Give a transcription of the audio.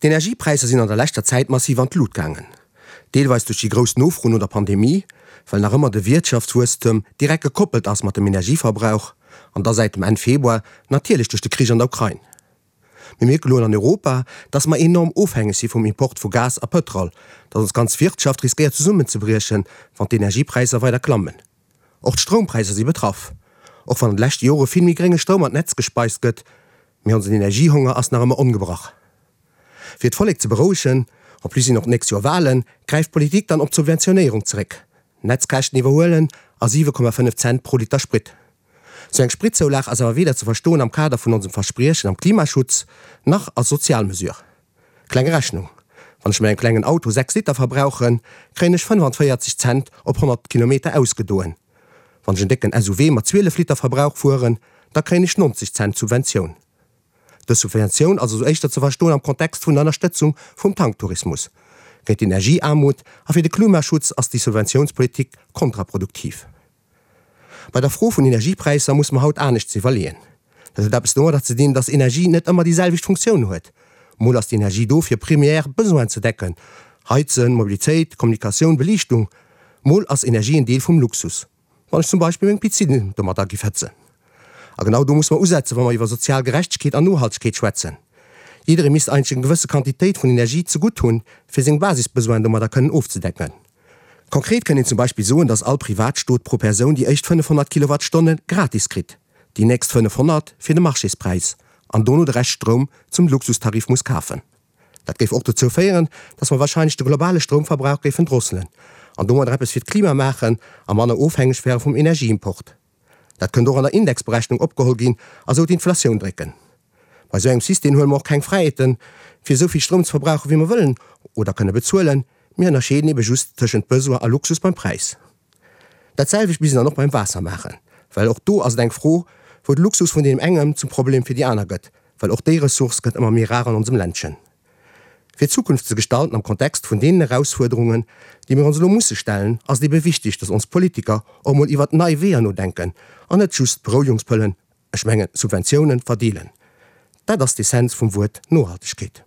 D'Energiepräisser sinn an der leschter Zäit massiv an d'Lut gaangen. Deelweis duerch déi grouss Nofro no der Pandemie, well nach ëmmer de Wiertschaftswuesstem direkt gekoppelt ass mat dem Energieverbrauch, an da säit dem Enn Februar natierlech duerch de Krich an der Ukrain. Mir mierke lo an Europa, dass mer enorm ofhängeg si vum Import vu Gas a Pëtrol, dass ons ganz Wirtschaft riskéiert zesummenzebriechen, wann d'Energiepräisser weider klammen. Och d'Stroumpräisser si betraff. Och wann an de leschte Jore vill méi grénge Stroum an d'Netz gespeist gëtt, mee onsen Energiehonger ass nach ëmmer ongebrach. Fir d'Vollek ze berouegen, en plus sinn och d'nächst Joer Walen, gräift d'Politik dann op d'Subventionéierung zeréck, Netzkäschten iwwerhuelen a 7,5 Cent pro Liter Sprit. Sou eng Spritzoulag ass awer weder ze verstoen am Kader vun onsem Verspriechen am Klimaschutz, nach als sozial Mesure. Kleng Rechnung, Wann ech mat engem klengen Auto 6 Liter verbrauchen, kréien ech 45 Cent op 100 Kilometer ausgedoen. Wann ech en décken SUV mat 12 Liter Verbrauch fueren, da kréien ech 90 Cent Subventioun. Dës Subventioun ass also éischter ze verstoen am Kontext vun der Ënnerstëtzung vum Tanktourismus. Géint d'Energieaarmut a fir de Klimaschutz ass déi Subventiounspolitik kontraproduktiv. Bei der Fro vun Energiepräisser muss mer haut aneschts iwwerleeën. Dat huet eppes domadder ze dinn, dass Energie net ëmmer déi selwecht Funktioun huet. Mol ass d'Energie do fir primär Besoinen ze decken, Heizen, Mobilitéit, Kommunikatioun, Beliichtung. Mol ass Energie en Deel vum Luxus, wann ech zum Beispill meng Piscine domadder giff hëtzen. A genau do muss mer usetzen, wa mer iwwer sozial Gerechtegkeet an Nohaltegkeet schwätzen. Jidderee misst eigentlech eng gewësse Quantitéit vun Energie zegutt hunn, fir seng Basisbesoinen domadder kënnen ofzedecken. Konkret kënnt een zum Beispill soen, dass all Privatstot pro Persoun déi éischt 500 Kilowattstonne gratis kritt, déi nächst 500 fir de Marchéspräis an dono de Rescht Stroum zum Luxustarif muss kafen. Dat géif och dozou féieren, dass mer wahrscheinlech de globale Stroumverbrauch géifen drosselen an domadder eppes fir d'Klima maachen a manner ofhängeg wäre vum Energieimport. Dat kënnt och an der Indexberechnung opgeholl ginn a sou d'Inflatioun drécken. Bei sou engem System huele mer och keng Fräiheeten, fir esou vill Stroum ze verbrauchen, wéi mer wëllen oder kënne bezuelen. Mir ënnerscheeden ebe just tëschent Besoin a Luxus beim Präis. Dat selwecht misst een dann och beim Waasser maachen, well och do ass et eng Fro, wou de Luxus vun deem engem zum Problem fir déi aner gëtt, well och déi Ressource gëtt ëmmer méi rar an onsem Ländchen. Fir d'Zukunft ze gestalten am Kontext vun deenen Erausfuerderungen, déi mir ons elo musse stellen, ass et ebe wichtig, dass ons Politiker och emol iwwert nei Weeër nodenken an net just Berouegungspëllen, ech mengen Subventiounen, verdeelen. Dat ass d'Essenz vum Wuert Nohaltegkeet.